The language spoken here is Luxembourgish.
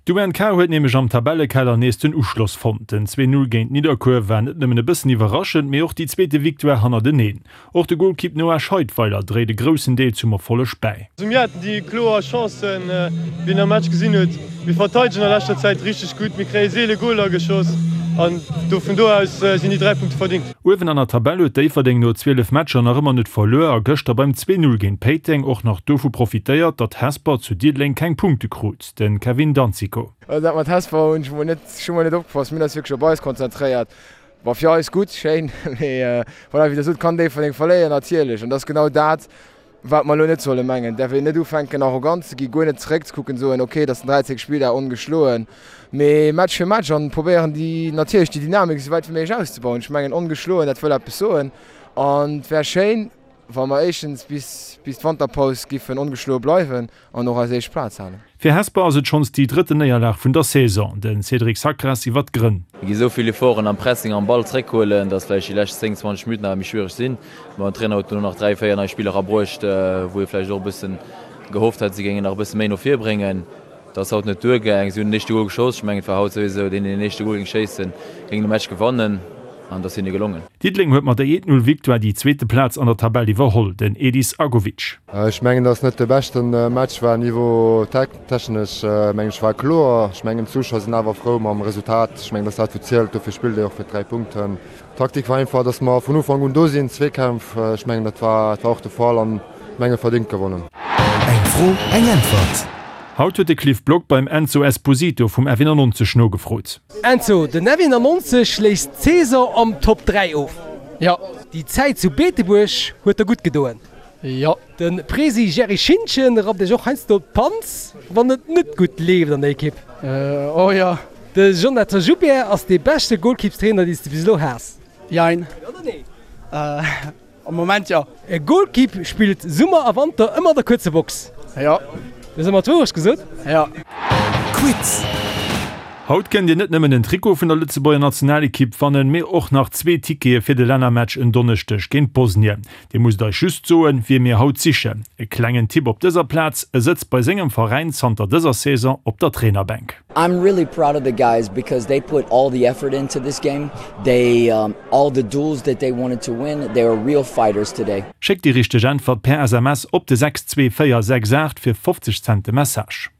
D'UNK huet nämlech am Tabellekeller nees den Uschloss fonnt. Den 2, 0 géint Nidderkuer war net nëmmen e bëssen iwwerraschend, mee och déi zweete Victoire hannerteneen. Och de Golkipp Noah Scheidweiler dréit e groussen Deel zum Erfolleg bäi. Mir haten déi kloer Chancen, wéi een am Match gesinn huet. Mir verteidegen a leschter Zäit richteg gutt, mir kréie seele Goler geschoss an do vun do aus sinn déi 3 Punkte verdingt. Uewen an der Tabell huet Déifferdeng no 12 Matcher nach ëmmer net verluer a gëschter beim 2, 0 géint Péiteng och nach dovu profitéiert, datt Hesper zu Diddeleng keng Punkte krut. De Kevin Danzico. Dat mat Hesper hunn ech mol net, ech hu mol net opgepasst, mir hunn eis wierklech op eis konzentréiert. War fir eis gutt, schéin, mee voilà, wéi der sot, kann Déifferdeng verléieren, natierlech. An dat ass genau dat, wat mer elo net solle mengen. Et däerf een net ufänken, arrogant ze ginn, guer net zeréckzekucken, soen, okay, et ass den 13. Spilldag, ongeschloen, mee Match fir Match an probéieren déi, natierlech déi Dynamik esou wäit wéi méiglech auszebauen. Ech mengen, ongeschloen, dat wëll eppes soen an et wär schéin, wa mer éischtens bis bis d'Wanterpaus giffen ongeschloe bleiwen an och eis éischt Plaz halen. Fir Hesper ass et schonns déi drëtten Néierlag vun der Saison. De Cédric Sacras iwwer d'Grënn. Mir gi sou vill Efforten am Pressing am Ball zréckhuelen, datt vläicht déi lescht 10, 20 Minutten awer méi schwiereg sinn. Mä den Trainer huet dono nach 3, 4 nei Spiller erabruecht, wou ee vläicht och e bëssen gehofft hat, si géingen nach e bësse méi no vir bréngen. Dat ass haut net duergaang. Si hunn den éischte Gol geschoss. Ech mengen, et war haut souwisou deen, deen den éischte Gol géing schéissen, géing de Match gewannen. An et ass hinne gelongen. Diddeleng huet mat der 1, 0 Victoire déi zweete Plaz an der Tabell iwwerholl. Den Edis Agovic. Ech mengen, dass net de beschte Match war. Niveau technesch mengen ech war kloer. Ech mengen d'Zuschauer sinn awer frou mam Resultat. Ech mengen, dass dat wou zielt. Dofir spillt ee och fir d'dräi Punkten. D'Taktik war einfach, dass mer vun Ufank un do sinn, Zweekämpf. Ech mengen, dat war dat war och de Fall an menge verdéngt gewonnen. Eng Fro, eng Äntwert. Haut huet de Cliff Block beim Enzo Esposito vum F91 nogefrot. Enzo, den F91 schléisst d'Saison am Top 3 of. Jo. Déi Zäit zu Beetebuerg huet der gutt gedoen. Jo. De Presi Jerry Schintgen rappt iech och heiansdo d'Panz, wann et net gutt leeft an der Ekipp. Oh jo. De Jonathan Joubert ass dee beschte Golkippstrainer, dee s de bis elo has. Jein. Jo oder nee? Am Moment jo. E Golkipp spillt Summer a Wanter ëmmer an der kuerzer Box. Jo. Du hues ëmmer d'Wourecht gesot. Jo. Quiz. Haut kënnt Dir net nëmmen en Trikot vun der Lëtzebuerger Nationalekipp wannen, mee och nach zwee Tickete fir de Lännermatch en Donneschdeg géint Bosnien. Dir musst eis just soen, wie mir haut sichen. E klengen Tipp op dëser Plaz, E sëtzt bei sengem Veräin zanter dëser Saison op der Trainerbänk. I'm really proud of the guys because they put all the effort into this game. They um, all the duels that they wanted to win, they are real fighters today. Schéckt déi richteg Äntwert per SMS op de 62468 fir 50 Cent de Message.